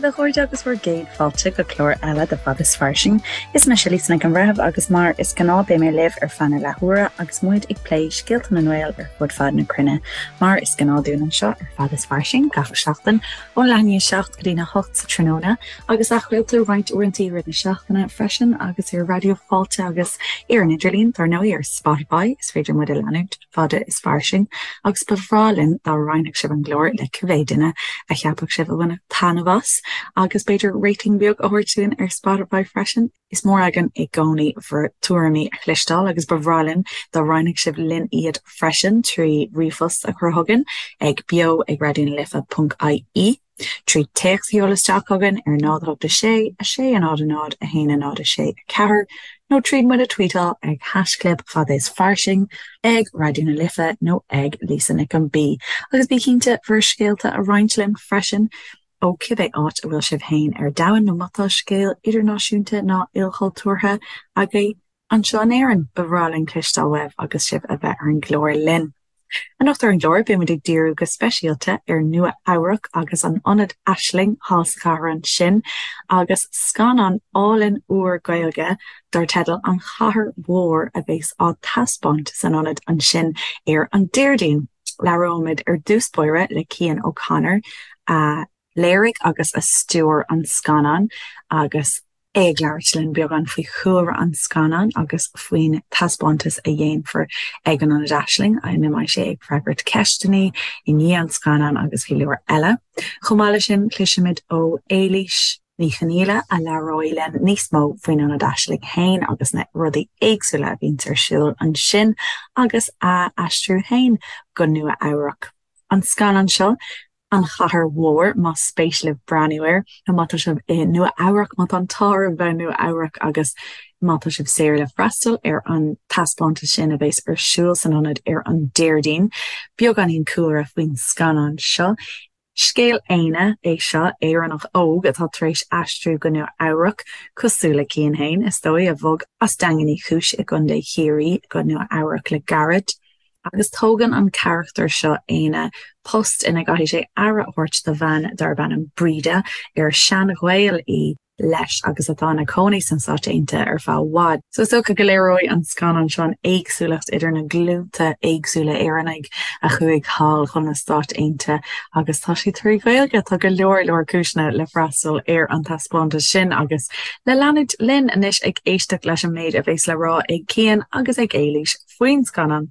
a chairde agus bhur gcéad fáilte go clár eile de Fada is Fairsing. Is mise Lisa Nic an Bhreithimh agus mar is gnáth beidh mé libh ar feadh na leathuaire agus muid ag plé scéalta na nGael ar fud fad na cruinne. Mar is gnáth dúinn anseo ar Fada is Fairsing gach seachtain ón leath i ndiaidh 7 go dtí na 8 sa tráthnóna agus athchraoltar roinnt uaireanta i rith na seachtaine freisin agus ar Raidió Fáilte agus ar an idirlíon, dar ndóigh ar Spotify is féidir muid a leanúint. fada is fairsing, agus ba bhreá linn dá roinnfeadh sibh an glór le cibé duine a cheapfadh sibh a bhainfeadh taitneamh as, agus b'fhéidir rating beag a thabhairt dúinn ar Spotify freisin. Is mór againn i gcónaí bhur tuairimí a chloisteáil agus ba bhreá linn dá roinnfeadh sibh linn iad freisin trí ríomhphost a chur chugainn ag beo ag raidionalife.ie. 3 téacs a sheoladh isteach chugainn ar 0 8 6 6 0 0 1 0 6 4 nó tríd muid a tweetáil ag haischlib fada is fairsing, ag Raidió na Life nó ag Lisa Nic an B. Agus bí cinnte bhur scéalta a roinnt linn freisin ó cibé áit a bhfuil sibh féin ar domhan nó má tá scéal idirnáisiúnta ná ilchultúrtha agaibh Anseo in Éirinn, ba bhreá linn cloisteáil uaibh agus sibh a bheith ar an gclár linn. Anocht ar an gclár, beidh muid ag díriú go speisialta ar Nua Eabhrac agus an Ionad Aisling thall sa chathair ansin agus scannán álainn úr Gaeilge dar teideal An Chathair Mhór a bheas á taispeáint san ionad ansin ar an Déardaoin. Labhróimid ar dtús báire le Cian O'Connor a léirigh agus a stiúir an scannán agus é ag labhairt linn beagán faoi chúlra an scannáin agus faoin taispeántas a dhéanfar ag an Ionad Aisling, ina mbeidh sé ag freagairt ceisteanna i ndiaidh an scannáin agus go leor eile. Chomh maith leis sin, cloisfimid ó Éilís Ní Chonghaile a labhróidh linn níos mó faoin Ionad Aisling féin agus na rudaí éagsúla a bhíonns ar siúl ansin agus a aistriú féin go Nua Eabhrac. An scannán seo, An Chathair Mhór, más spéis libh breathnú air, nó má tá sibh i Nua Eabhrac, má tá an t-ádh oraibh bheith i Nua Eabhrac agus má tá sibh saor le freastal ar an taispeántas sin a bheas ar siúl san ionad ar an Déardaoin. Beagáinín cúlra faoin scannán seo. Scéal Éanna é seo, Éireannach óg atá tar éis aistriú go Nua Eabhrac, cosúil le Cian féin, is dóigh, a bhog as Daingean Uí Chúis i gContae Chiarraí go Nua Eabhrac le gairid. Agus tógann an carachtar seo, Éanna, post ina gcaithfidh sé aire a thabhairt do bhean darb ainm Breda, ar sean-ghaol í leis agus atá ina cónaí sna Stáit Aontaithe ar feadh i bhfad. So is dócha go léireoidh an scannán seo an éagsúlacht idir na glúnta éagsúla Éireannaigh a chuaigh thall chun na Stáit Aontaithe agus tá sé trí Ghaeilge. Tá go leor leor cúiseanna le freastal ar an taispeántas sin agus le leanúint linn anois ag éisteacht leis an méid a bheas le rá ag Cian agus ag Éilís. faoin scannán.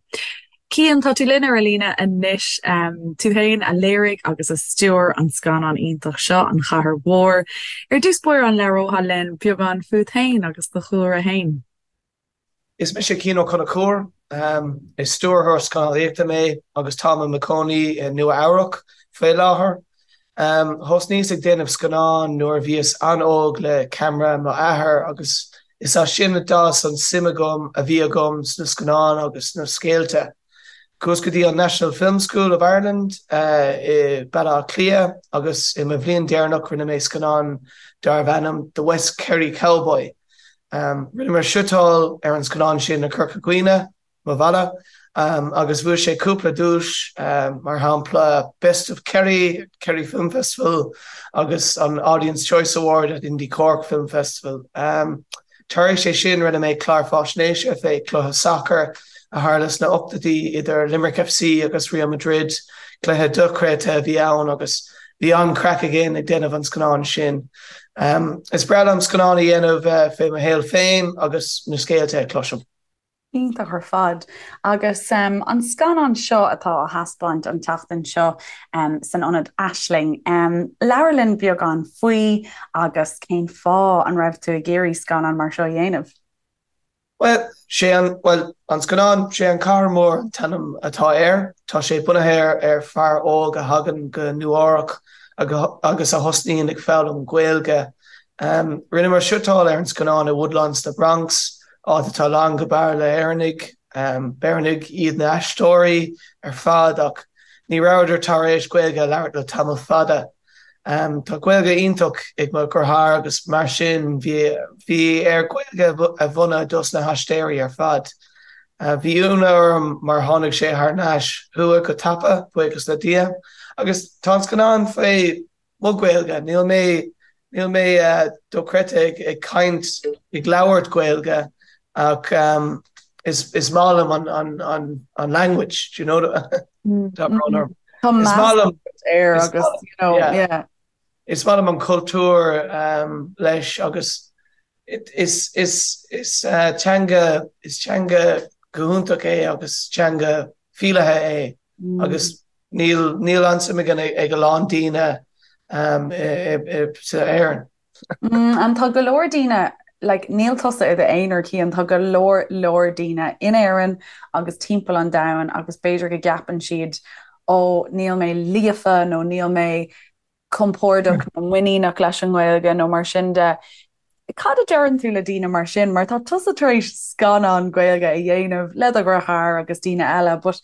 Cian, tá tú linn ar an líne anois. Tú féin a léirigh agus a stiúir an scannán iontach seo, An Chathair Mhór. Ar dtús báire, an labhrófá linn beagán fút féin agus do chúlra féin? Is mise Cian Ó Conchúir. Is stiúrthóir scannánaíochta mé agus táim i mo chónaí i Nua Eabhrac faoi láthair. Thosnaíos ag déanamh scannán nuair a bhíos an-óg le ceamara mo athar agus is as sin a d'fhás an suim agam a bhí agam sna scannáin agus sna scéalta. Chuas go dtí an National Film School of Ireland i Baile Átha Cliath agus i mo bhliain deireanach rinne mé scannán darbh ainm The West Kerry Cowboy. Rinneamar suiteáil ar an scannán sin i Corca Dhuibhne. mo bhaile, agus bhuaigh sé cúpla duais, mar shampla Best of Kerry, Kerry Film Festival agus an Audience Choice Award at Indie Cork Film Festival. Tar éis é sin rinne mé clár fáisnéise fé cluiche sacair a tharla sna ochtóidí idir Limerick FC agus Real Madrid, cluiche dochreidte a bhí ann agus bhí an-chraic againn ag déanamh an scannáin sin. Is breá liom scannáin a dhéanamh fé mo shaol féin agus na scéalta a chloisim. Iontach ar fad. Agus an scannán seo atá á thaispeáint an tseachtain seo san Ionad Aisling, labhair linn beagán faoi agus cén fáth an raibh tú ag iarraidh scannán mar seo a dhéanamh? Bhuel, sé an, bhuel, an scannán, sé An Chathair Mhór an t-ainm atá air. Tá sé bunaithe ar fear óg a thagann go Nua Eabhrac agus a thosnaíonn ag foghlaim Gaeilge. Rinneamar suiteáil ar an scannán i Woodlawn sna Bronx, áit atá lán go barr le hÉireannaigh. B'Éireannaigh iad na haisteoirí ar fad ach ní rabhadar tar éis Gaeilge a labhairt le tamall fada. Tá Gaeilge iontach ag mo dheartháir agus mar sin bhí bhí air Gaeilge a mhúineadh dos na haisteoirí ar fad. Bhí ionadh orm mar tháinig sé thar n-ais chucu go tapa, buíochas le Dia. Agus tá an scannán faoi mo Ghaeilge, níl mé. Níl mé dochreidte ag caint, ag labhairt Gaeilge ach is maith liom an language, do you know? Tá brón orm. Tá Is maith liom air agus, you know, yeah. Is maith liom an cultúr leis agus is is teanga is teanga go hiontach é agus teanga fileata é agus Níl níl an-suim again ag a lán daoine sa Éirinn. And tá go leor daoine, like, níl tusa i d'aonar Cian, tá go leor leor daoine in Éirinn agus timpeall an domhain agus b'fhéidir go gceapann siad ó níl mé líofa nó níl mé compordach nó muiníneach leis an nGaeilge nó mar sin de. Cad a deireann tú le daoine mar sin? Mar tá tusa tar éis scannán Gaeilge a dhéanamh le do dheartháir agus daoine eile, but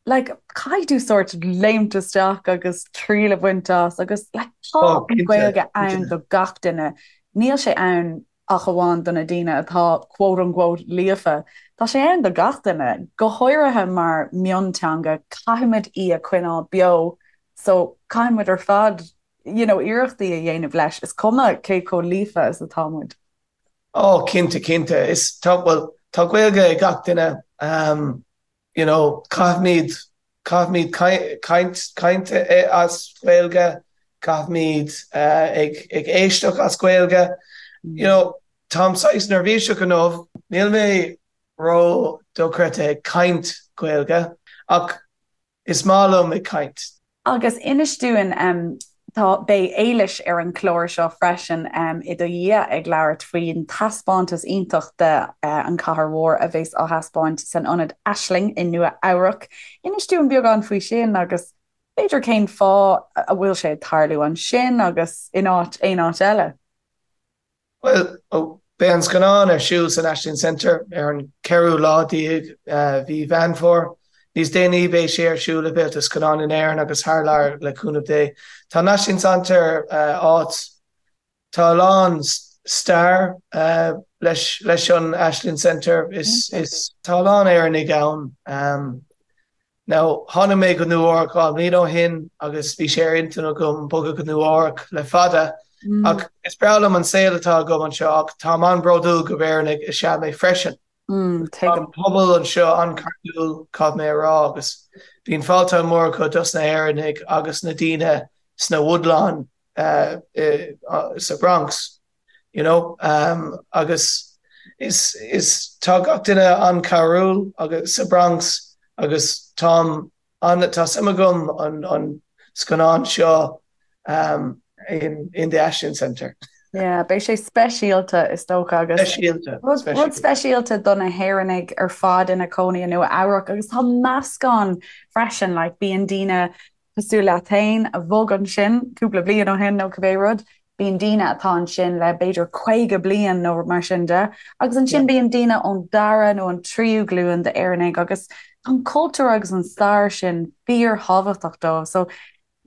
like, caithfidh tú sórt léimt isteach agus triail a bhaint as agus like, tá Oh, an cinnte, Ghaeilge ann cinnte. do gach duine. Níl sé ann ach amháin do na daoine atá quote unquote líofa. Tá sé ann do gach duine, go háirithe mar mionteanga, caithfimid í a choinneáil beo So caithfidh muid ar fad you know iarrachtaí a dhéanamh leis, is cuma cé chomh líofa is atá muid. Oh cinnte, cinnte. Is tá, bhuel, tá Gaeilge ag gach duine, um, you know, caithfimid, caithfimid caint, caint as Gaeilge, caithfimid uh, ag, ag éisteacht as Gaeilge. You know, táim saghas neirbhíseach inniu, níl mé ró dochreidte ag caint Gaeilge, ach Is maith liom ag caint. Agus inis dúinn, tá, beidh Éilis ar an chlár seo freisin i do dhiaidh ag labhairt faoin taispeántas iontach de An Chathair Mhór a bheas á thaispeáint san Ionad Aisling i Nua Eabhrac. Inis dúinn beagán faoi sin agus b'fhéidir cén fáth a bhfuil sé ag tarlú ansin agus in áit aon áit eile. Bhuel, beidh an scannán ar siúl san Ashling Center ar an ceathrú lá déag mhí Mheán Fómhair. Níos déanaí beidh sé ar siúl i bhféilte scannán in Éirinn agus thar lear le cúnamh Dé. Tá an Ashling Center áit, tá a lán stair leis leis an Ashling Center, is is tá a lán Éireannaigh ann. Now, tháinig mé go Nua Eabhrac 2 mbliana ó shin agus bhí sé ar intinn agam bogadh go Nua Eabhrac le fada ach is breá liom an saol atá agam anseo ach táim an-bhródúil gurb Éireannaigh is ea mé freisin. Tá an pobal anseo an-chairdiúil, caithfidh mé a rá, agus bíonn fáilte mór acu dos na hÉireannaigh agus na daoine sna Woodlawn sa Bronx. You know, agus is, is, tá gach duine an-chabhrúil agus sa Bronx agus táim an, tá suim agam an, an scannán seo um, in, in the Ashling Centre. Yeah, beidh sé speisialta is dócha agus Speisialta, rud, speisialta. rud speisialta do na hÉireannaigh ar fad ina cónaí i Nua Eabhrac agus tá meascán freisin, like, bíonn daoine cosúil leat féin a bhog ansin cúpla bliain ó shin nó cibé rud, bíonn daoine atá ansin le b'fhéidir 50 bliain nó mar sin de, agus ansin bíonn daoine ón dara nó an tríú glúin d'Éireannaigh agus tá an cultúr agus an stair sin fíorthábhachtach dóibh. So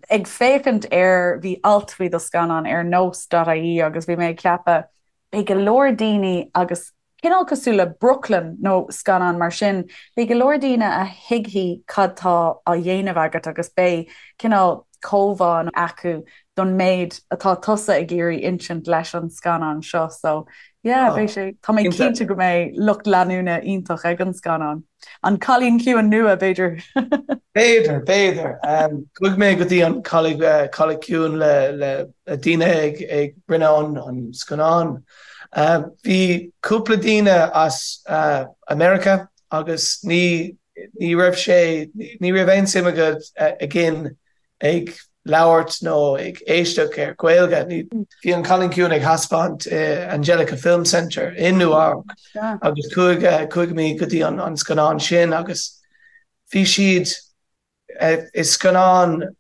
ag féachaint ar, bhí alt faoi do scannán ar nós.ie agus bhí mé ag ceapadh, beidh go leor daoine agus Cineál cosúil le Brooklyn nó scannán mar sin, beidh go leor daoine a thuigfidh cad tá á dhéanamh agat agus beidh cineál comhbhá acu don méid atá tusa ag iarraidh insint leis an scannán seo. So, yeah, beidh sé, tá mé cinnte go mbeidh lucht leanúna iontach ag an scannán. An Cailín Ciúin nua, b'fhéidir? B'fhéidir, b'fhéidir. Chuaigh mé go dtí an Cailín Ciúin le daoine ag ag rinne an scannán. Bhí cúpla daoine as America agus ní ní raibh sé ní raibh aon suim agat again ag labhairt nó ag éisteacht ar Ghaeilge. Bhí an Cailín Ciúin ag thaispeáint i Angelika Film Center i Nua Eabhrac agus chuaigh chuaigh mé go dtí an scannán sin agus bhí siad is scannán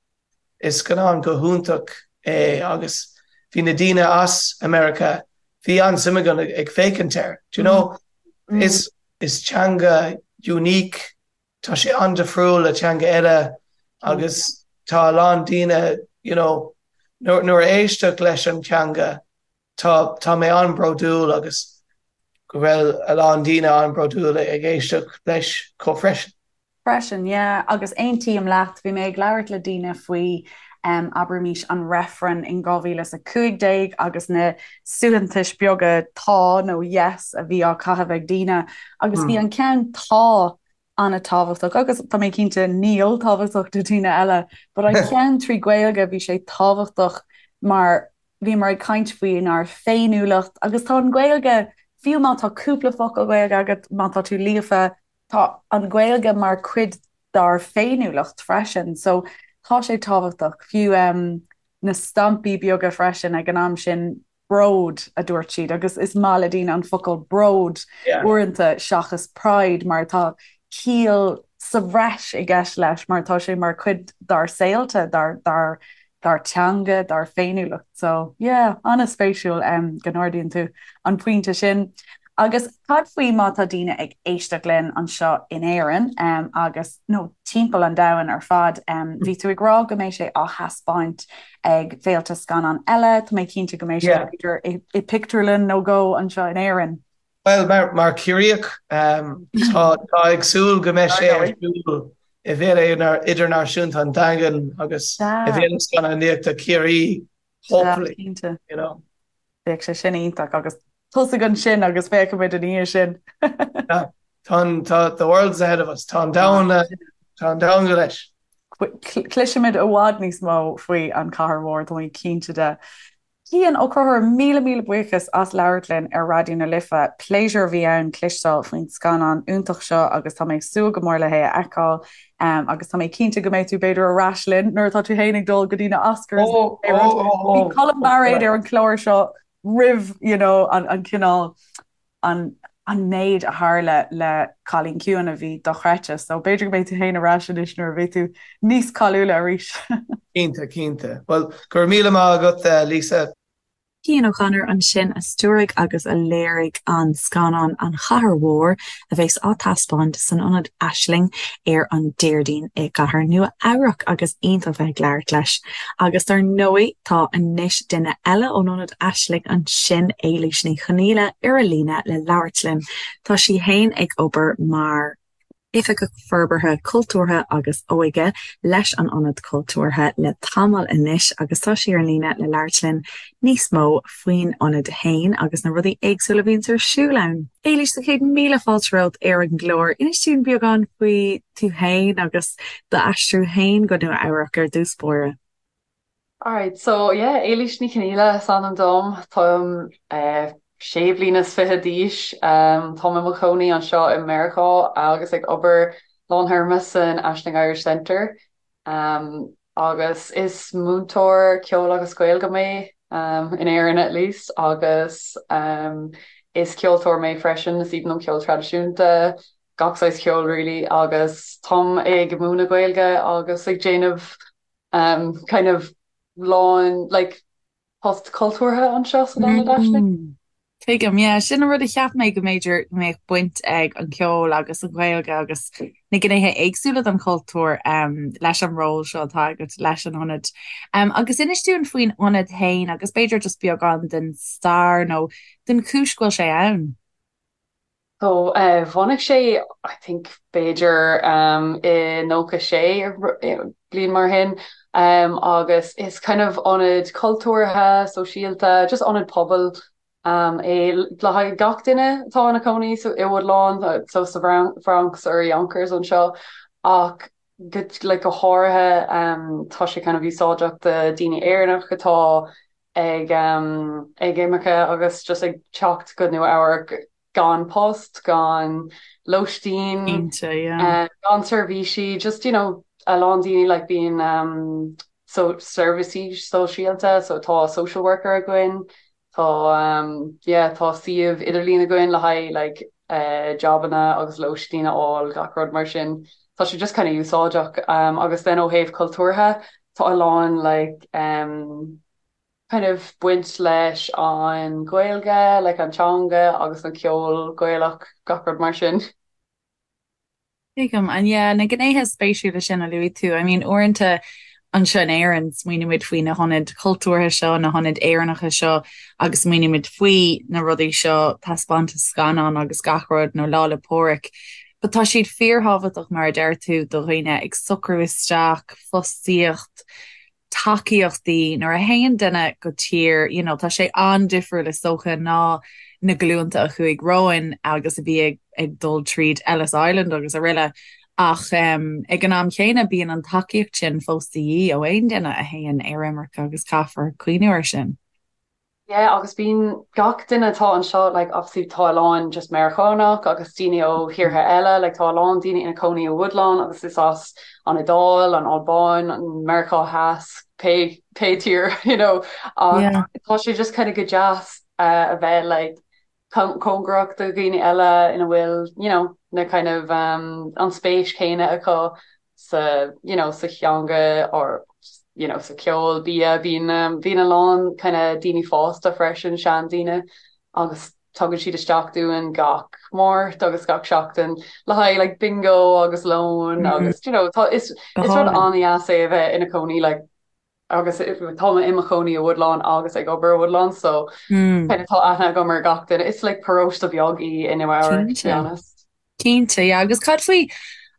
is scannán go hiontach é agus bhí na daoine as America bhí an-suim again ag féachaint air. Do you know? Is is teanga unique Tá sé an-difriúil le teanga eile agus tá a lán daoine, you know, nuair a éisteacht leis an teanga, tá, tá mé an-bhródúil agus go bhfuil a lán daoine an-bhródúil ag éisteacht leis chomh freisin. Freisin, yeah, agus aontaím leat, bhí mé ag labhairt le daoine faoi. abraimis an reifreann in 2015 agus na suaitheantais beaga 'tá' nó 'yes' a bhí á caitheamh ag daoine agus bhí an ceann 'tá' an-tábhachtach agus tá mé cinnte 'níl' tábhachtach do daoine eile but an ceann trí Gaeilge bhí sé tábhachtach mar bhíomar ag caint faoinár féiniúlacht agus tá an Ghaeilge, fiú má tá cúpla focal Gaeilge agat, má tá tú líofa, tá an Ghaeilge mar cuid dár féiniúlacht freisin so tá sé tábhachtach. Fiú na stampaí beaga freisin ag an am sin, bród a dúirt siad agus is maith le daoine an focal bród uaireanta seachas pride mar tá ciall sa bhreis i gceist leis mar tá sé mar chuid dár saolta, dár, dár, dár teanga, dár féiniúlacht. So, yeah, an-spéisiúil go n-ardaíonn tú an pointe sin. Agus cad faoi má tá daoine ag éisteacht linn anseo in Éirinn agus, nó timpeall an domhain ar fad, bhí tú ag rá go mbeidh sé á thaispeáint ag féilte scannán eile, tá mé cinnte go mbeidh sé b'fhéidir i pictiúrlann nó dhó anseo in Éirinn. Bhuel, mar Ciarraíoch, tá ag súil go mbeidh sé ar siúl i bhFéile Idirnáisiúnta an Daingin agus i bhFéile Scannánaíochta Chiarraí, hopefully. Cinnte. You know. Bheadh sé sin iontach agus tosaigh ansin agus féachfaimid ina dhiaidh sin. Tá an, tá, the world's ahead of us. Tá an domhan, tá an domhan go leis. Cloisfimid i bhfad níos mó faoi An Chathair Mhór, tá mé cinnte de. Cian Ó Conchúir, míle míle buíochas as labhairt linn ar Raidió na Life. Pléisiúr a bhí ann cloisteáil faoin scannán iontach seo agus tá mé ag súil go mór le hé a fheiceáil agus tá mé cinnte go mbeidh tú b'fhéidir ar ais linn nuair atá tú féin ag dul go dtí na Oscars. Bhí Colm Bairéad ar an chlár seo roimh you know, an, an cineál an an méid a tharla le Cailín Ciúin a bhí dochreidte. So b'fhéidir go mbeidh tú féin ar ais anois nuair a bheidh tú níos cáiliúla arís. Cinnte, cinnte. Bhuel, go raibh míle maith agat, Lisa. Cian O'Connor ansin a stiúraigh agus a léirigh an scannán An Chathair Mhór a bheas á taispeáint san Ionad Aisling ar an Déardaoin i gcathair Nua Eabhrac agus iontach bheith ag labhairt leis. Agus dar ndóigh tá anois duine eile ón Ionad Aisling ansin, Éilís Ní Chonaola, ar an líne le labhairt linn. Tá sí fhéin ag obair mar Oifigeach Forbartha Cultúrtha agus Óige leis an Ionad Cultúrtha le tamall anois agus tá sí ar an líne le labhairt linn níos mó faoin ionad fhéin agus na rudaí éagsúla a bhíonns ar siúl ann. Éilís, tá céad míle fáilte romhat ar an gclár. Inis dúinn beagán faoi tú fhéin agus d'aistriú fhéin go Nua Eabhrac ar dtús báire. Alright, so yeah, Éilís Ní Chonaola is ainm dom. Táim sé bliana is fiche d'aois. Táim i mo chónaí anseo i Meiriceá agus ag obair lántéarma san Aisling Irish Centre. Agus is múinteoir ceoil agus Gaeilge mé, in Éirinn at least, agus is ceoltóir mé freisin, is aoibhinn liom ceol traidisiúnta, gach saghas ceoil really, agus táim ag múineadh Gaeilge agus ag déanamh kind of lán like post cultúrtha anseo san Ionad Aisling. Tuigim, yeah, sin an rud a cheap mé go mb'fhéidir go mbeadh baint ag an cheol agus an Ghaeilge agus na gnéithe éagsúla den chultúr um, leis an ról seo atá agat leis an ionad. Um, agus inis dúinn faoin ionad féin agus b'fhéidir just beagán den stair nó den chúis go bhfuil sé ann. So bhunaigh sé I think b'fhéidir i 96 bliain mar sin agus is kind of ionad cultúrtha, sóisialta, just ionad pobail é le haghaidh gach duine atá ina cónaí so i Woodlawn, so sa Bhronx or Yonkers anseo ach go like go háirithe tá sé kind of úsáideach do daoine Éireannach atá ag ag imirce agus just ag teacht go Nua Eabhrac gan post, gan lóistín, Cinnte, yeah. gan seirbhísí, just you know a lán daoine like bíonn um, so seirbhísí sóisialta, so tá social worker againn, tá um, yeah, tá suíomh idirlín againn le haghaidh like uh, jobanna agus lóistín a fháil, gach rud mar sin. Tá sé just kind of úsáideach um, agus then ó thaobh cultúrtha tá a lán like um, kind of baint leis an Ghaeilge, like an teanga agus an ceol Gaelach, gach rud mar sin. Tuigim. And yeah, na gnéithe spéisiúla sin a luaigh tú, I mean uaireanta anseo in Éirinn smaoinímid faoi na hionaid chultúrtha seo, na hionaid Éireannacha seo agus smaoinímid faoi na rudaí seo, taispeántas scannán agus gach rud nó Lá 'le Pádraig. But tá siad fíorthábhachtach mar a deir tú do dhaoine ag socrú isteach, fostaíocht. tacaíochtaí nuair a théann duine go tír, you know, tá sé an-difriúil is dócha ná na glúnta a chuaigh romhainn agus a bhí ag ag dul tríd Ellis Island agus araile ach ag an am chéanna bíonn an tacaíocht sin fós de dhíth ó aon duine a théann ar imirce agus caithfear cuimhniú air sin. Yeah agus bíonn gach duine atá anseo like obviously tá a lán just Meiriceánach agus daoine ó thíortha eile like tá a lán daoine ina cónaí i Woodlawn agus is as an Iodáil, an Albáin, an Meiriceá Theas, pé pé tír you know ach yeah. tá sé just kind of go deas uh, a bheith like cóngarach do dhaoine eile ina bhfuil you know na kind of um, an spéis céanna acu sa you know sa theanga or you know sa ceol bia bíonn um, bíonn a lán kind of daoine fásta freisin seandaoine agus tugann siad isteach dúinn gach Máirt agus gach seachtain le haghaidh like bingo agus lón mm -hmm. agus you know tá is is rud an-deas é a bheith ina cónaí like agus tá mé i mo chónaí i Woodlawn agus ag obair i Woodlawn so mm. kind of tá aithne agam ar gach duine. It's like paróiste beag í i Nua Eabhrac to be honest. Cinnte, yeah. Agus cad faoi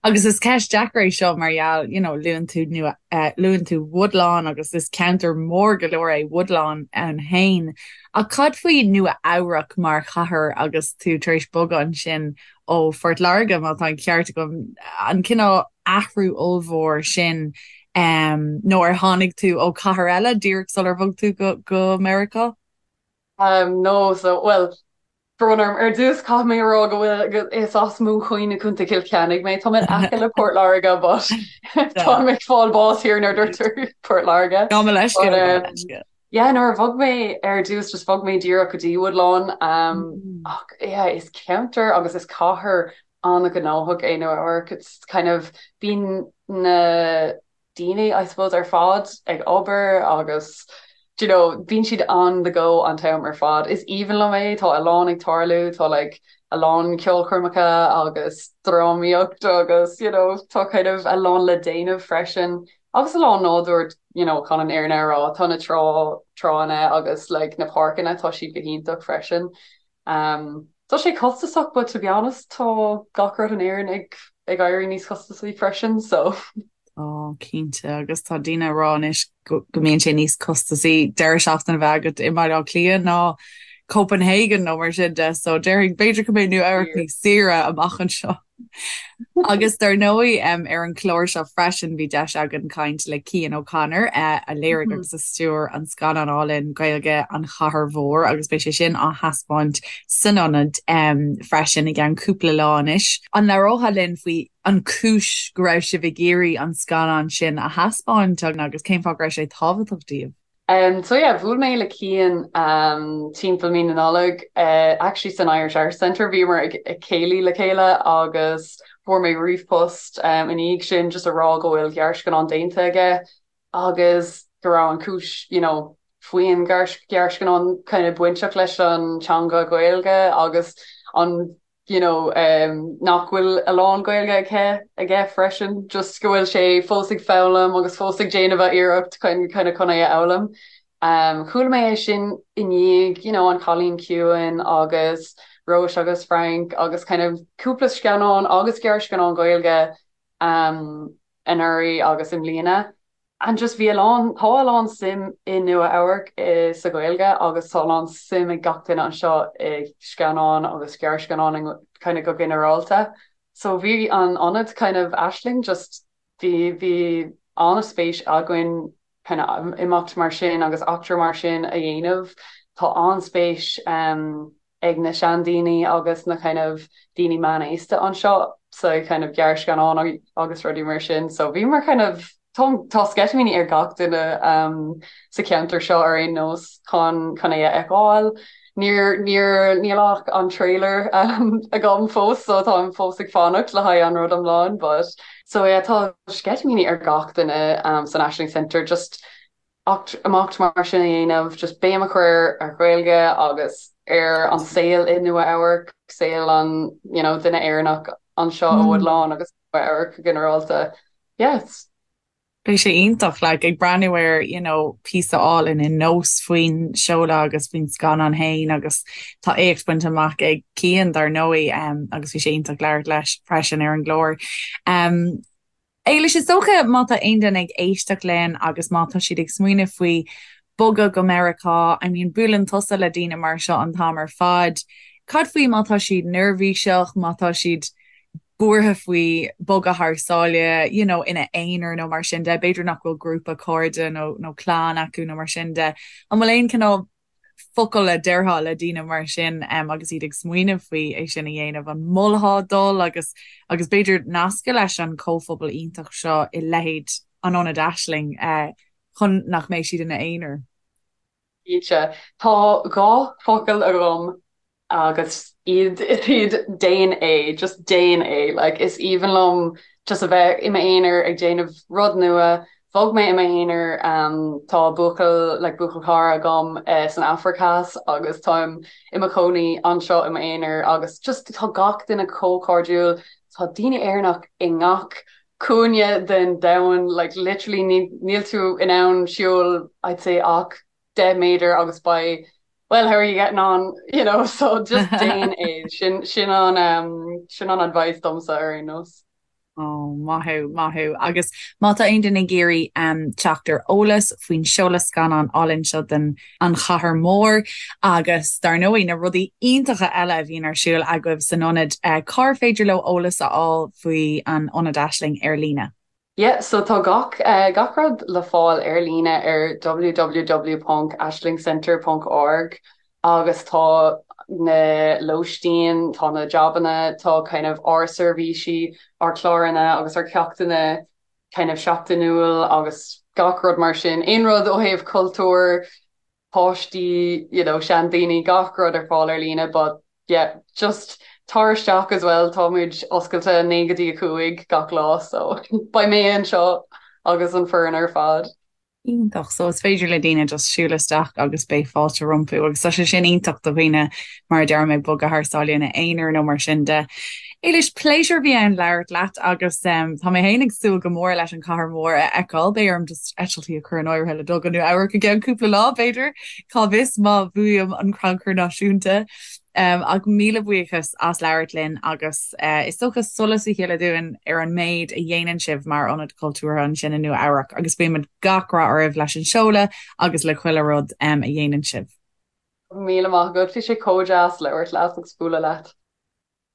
agus is ceist deacair é seo mar gheall, you know, luann tú Nua eh, luann tú Woodlawn agus is ceantar mór go leor é Woodlawn ann féin. Ach cad faoi Nua Eabhrac mar chathair agus tú tar éis bogadh ansin ó Phort Láirge, má tá an ceart agam, an cineál athrú ollmhór sin nó ar tháinig tú ó chathair eile díreach sular bhog tú go go Meiriceá? Um, no, so, well, brón orm, ar dtús caithfidh mé a rá go bhfuil is as Móin Choinn i Contae Chill Chainnigh mé, tá mé in aice le Port Láirge but táim ag fáil bás here nuair a deirtear Port Láirge. Gabh mo leithscéal, gabh mo leithscéal. Yeah, nuair a bhog mé ar dtús just bhog mé díreach go dtí Woodlawn um, ach yeah, is ceantar agus is cathair an-ghnóthach é Nua Eabhrac. It's kind of bíonn na daoine I suppose ar fad ag obair agus do you know bíonn siad on the go an t-am ar fad. Is aoibhinn liom é, tá a lán ag tarlú, tá like a lán ceolchoirmeacha agus drámaíocht agus you know tá kind of a lán le déanamh freisin. Agus a lán nádúr you know chun an fhírinne a rá, tá na trá tránna agus like na páirceanna tá siad go hiontach freisin. Um, tá sé costasach but to be honest tá gach rud in Éirinn ag ag éirí níos costasaí freisin so. Tá, cinnte, agus tá daoine ag rá anois go go mbíonn sé níos costasaí deireadh seachtaine a bheith agat i mBaile Átha Cliath ná Copenhagen nó mar sin de, so déarfainn b'fhéidir go mbeidh Nua Eabhrac níos saoire amach anseo. Agus dar ndóigh ar an chlár seo freisin bhí deis againn caint le Cian O'Connor a léirigh agus a stiúir an scannán álainn Gaeilge An Chathair Mhór agus beidh sé sin á thaispeáint san ionad freisin i gceann cúpla lá anois. An labhrófá linn faoi an chúis go raibh sibh ag iarraidh an scannán sin a thaispeáint agus cén fáth go raibh sé tábhachtach daoibh? Um, so yeah, bhuail mé le Cian um, timpeall mí na Nollag, uh, actually san Irish Arts Centre, bhíomar ag, ag céilí le chéile agus fuair mé ríomhphost um, ina dhiaidh sin just a rá go bhfuil gearrscannán déanta aige agus go raibh an cúis, you know, faoin ghearrscannán kind of bainteach leis an teanga Gaeilge agus an you know, um, nach bhfuil a lán Gaeilge aici aige freisin, just go bhfuil sé fós ag foghlaim agus fós ag déanamh a iarracht chun kind of chun é a fhoghlaim. Um, chuala mé é sin i ndiaidh, you know, an Cailín Ciúin agus Róis agus Frank agus kind of cúpla scannán agus gearrscannán Gaeilge um, anuraidh agus i mbliana. And just bhí a lán, tá a lán suim i Nua Eabhrac sa Ghaeilge agus tá a lán suim ag gach duine anseo i scannáin agus gearrscannáin kind of go ginearálta. So bhí an ionad kind of Aisling just bhí bhí an-spéis againn kind of imeacht mar sin agus eachtra mar sin a dhéanamh. Tá an-spéis um, ag na seandaoine agus na kind of daoine meánaosta anseo sa kind of gearrscannán agus rudaí mar sin. So bhíomar kind of tá tá sceitimíní ar gach duine um, sa cheantar seo ar aon nós chun chun é a fheiceáil. Níor níor níl ach an trailer um, agam fós so táim fós ag fanacht le haghaidh an rud iomlán, but so yeah, tá sceitimíní ar gach duine um, san Aisling Centre just imeacht mar sin a dhéanamh, just béim a chur ar Ghaeilge agus ar an saol i Nua Eabhrac, saol an you know, duine Éireannach anseo i Woodlawn agus Nua Eabhrac go ginearálta. Yes. Beidh sé iontach, like, ag breathnú ar, you know, píosa álainn i Nós faoin seoladh agus faoin scannán féin agus tá éacht bainte amach ag Cian dar ndóigh um, agus bhí sé iontach labhairt leis freisin ar an gclár. Um, Éilis, is dócha má tá aon duine ag éisteacht linn agus má tá siad ag smaoineamh faoi bogadh go Meiriceá, I mean buaileann tusa le daoine mar seo an t-am ar fad, cad faoi má tá siad neirbhíseach, má tá siad buartha faoi bogadh thar sáile, you know, ina aonar nó mar sin de, b'fhéidir nach bhfuil grúpa cairde nó nó clann acu nó mar sin de. An bhfuil aon cineál focal a déarfá le daoine mar sin agus iad ag smaoineamh faoi é sin a dhéanamh? An molfá dul agus agus b'fhéidir nascadh leis an chomhphobal iontach seo i leithéid an Ionaid Aisling chun nach mbeidh siad ina aonar? Cinnte. Tá 2 focal agam agus iad iad déan é, just déan é. Like is aoibhinn liom just a bheith i m'aonar ag déanamh rud nua. Bhog mé i m'aonar, um, tá buachaill like buachaill cara agam uh, san Afraic Theas agus táim i mo chónaí anseo i m'aonar agus just tá gach duine chomh cairdiúil, tá daoine Éireannach i ngach cúinne den domhan, like literally níl tú in ann siúl I'd say ach 10 méadar agus beidh well how are you getting on you know so just déan é sin sin an um, sin an advice domsa ar aon nós. Oh, maith thú, maith thú. Agus má tá aon duine ag iarraidh um, teacht ar eolas faoin seoladh scannán álainn seo den An Chathair Mhór agus dar ndóigh na rudaí iontacha eile a bhíonn ar siúl agaibh san ionad, uh, cár féidir leo eolas a fháil faoi an Ionad Aisling ar líne? Yeah, so tá gach, gach rud le fáil ar líne ar www ponc aislingcentre ponc org agus tá na lóistín, tá na jabanna, tá kind of ár seirbhísí, ár cláranna agus ár ceachtanna kind of seachtainiúil agus gach rud mar sin. Aon rud ó thaobh cultúr, páistí, you know, seandaoine, gach rud ar fáil ar líne but yeah, just tar isteach as well, tá muid oscailte 9 go dtí 5 gach lá so beidh mé anseo agus an foireann ar fad. Iontach, so is féidir le daoine just siúl isteach agus beidh fáilte rompu agus tá sé sin iontach do dhaoine mar a deir mé bogadh thar sáile ina aonar nó mar sin de. Éilis, pléisiúr a bhí ann labhairt leat agus tá mé féin ag súil go mór leis an Chathair Mhór a fheiceáil. Beidh orm just eitiltí a chur in áirithe le dul go Nua Eabhrac i gceann cúpla lá, b'fhéidir, cá bhfios má bhuaim an crannchur náisiúnta. Ach míle buíochas as labhairt linn agus is dócha solas a shileadh dúinn ar an méid a dhéanann sibh mar ionad cultúrtha ansin i Nua Eabhrac agus guímid gach rath oraibh leis an seoladh agus le chuile rud a dhéanann sibh. Míle maith agat, bhí sé chomh deas labhairt leat agus bualadh leat.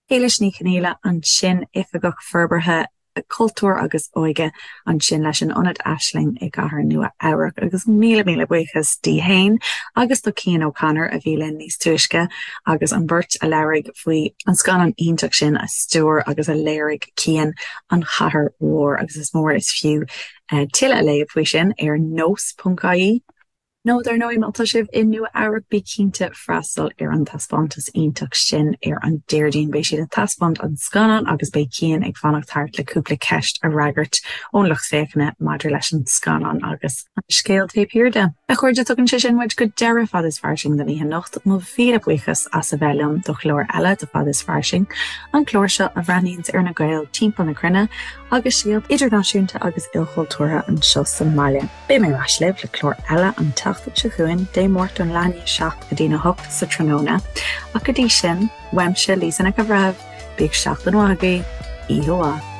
Éilis Ní Chonghaile ansin, Oifigeach Forbartha Cultúir agus Óige ansin leis an Ionad Aisling i gCathair Nua Eabhrac agus míle míle buíochas di fhéin agus do Cian O'Connor a bhí linn níos túisce agus an bheirt a labhraigh faoi an scannán iontach sin a stiúir agus a léirigh Cian, An Chathair Mhór agus is mór is fiú tuilleadh a léamh faoi sin ar nós.ie. Nó dar ndóigh, má tá sibh i Nua Eabhrac, bí cinnte freastal ar an taispeántas iontach sin ar an Déardaoin. Beidh siad ag taispeáint an scannán agus beidh Cian ag fanacht thart le cúpla ceist a fhreagairt ón lucht féachana maidir leis an scannán agus an scéal taobh thiar de. A chairde, tugann sé sin muid go deireadh Fad is Fairsing don oíche anocht. Mo mhíle buíochas as a bheith liom do chlár eile de Fad is Fairsing, an clár seo a bhreathnaíonns ar na Gaeil timpeall na cruinne agus scéalta idirnáisiúnta agus ilchultúrtha anseo sa mbaile. Beidh mé ar ais libh le clár eile an tseachtain seo chugainn, Dé Máirt ón leath i ndiaidh 7 go dtí'n 8 sa tráthnóna. Ach go dtí sin, uaimse, Lisa Nic an Bhreithimh, bíodh seachtain mhaith agaibh, oíche mhaith.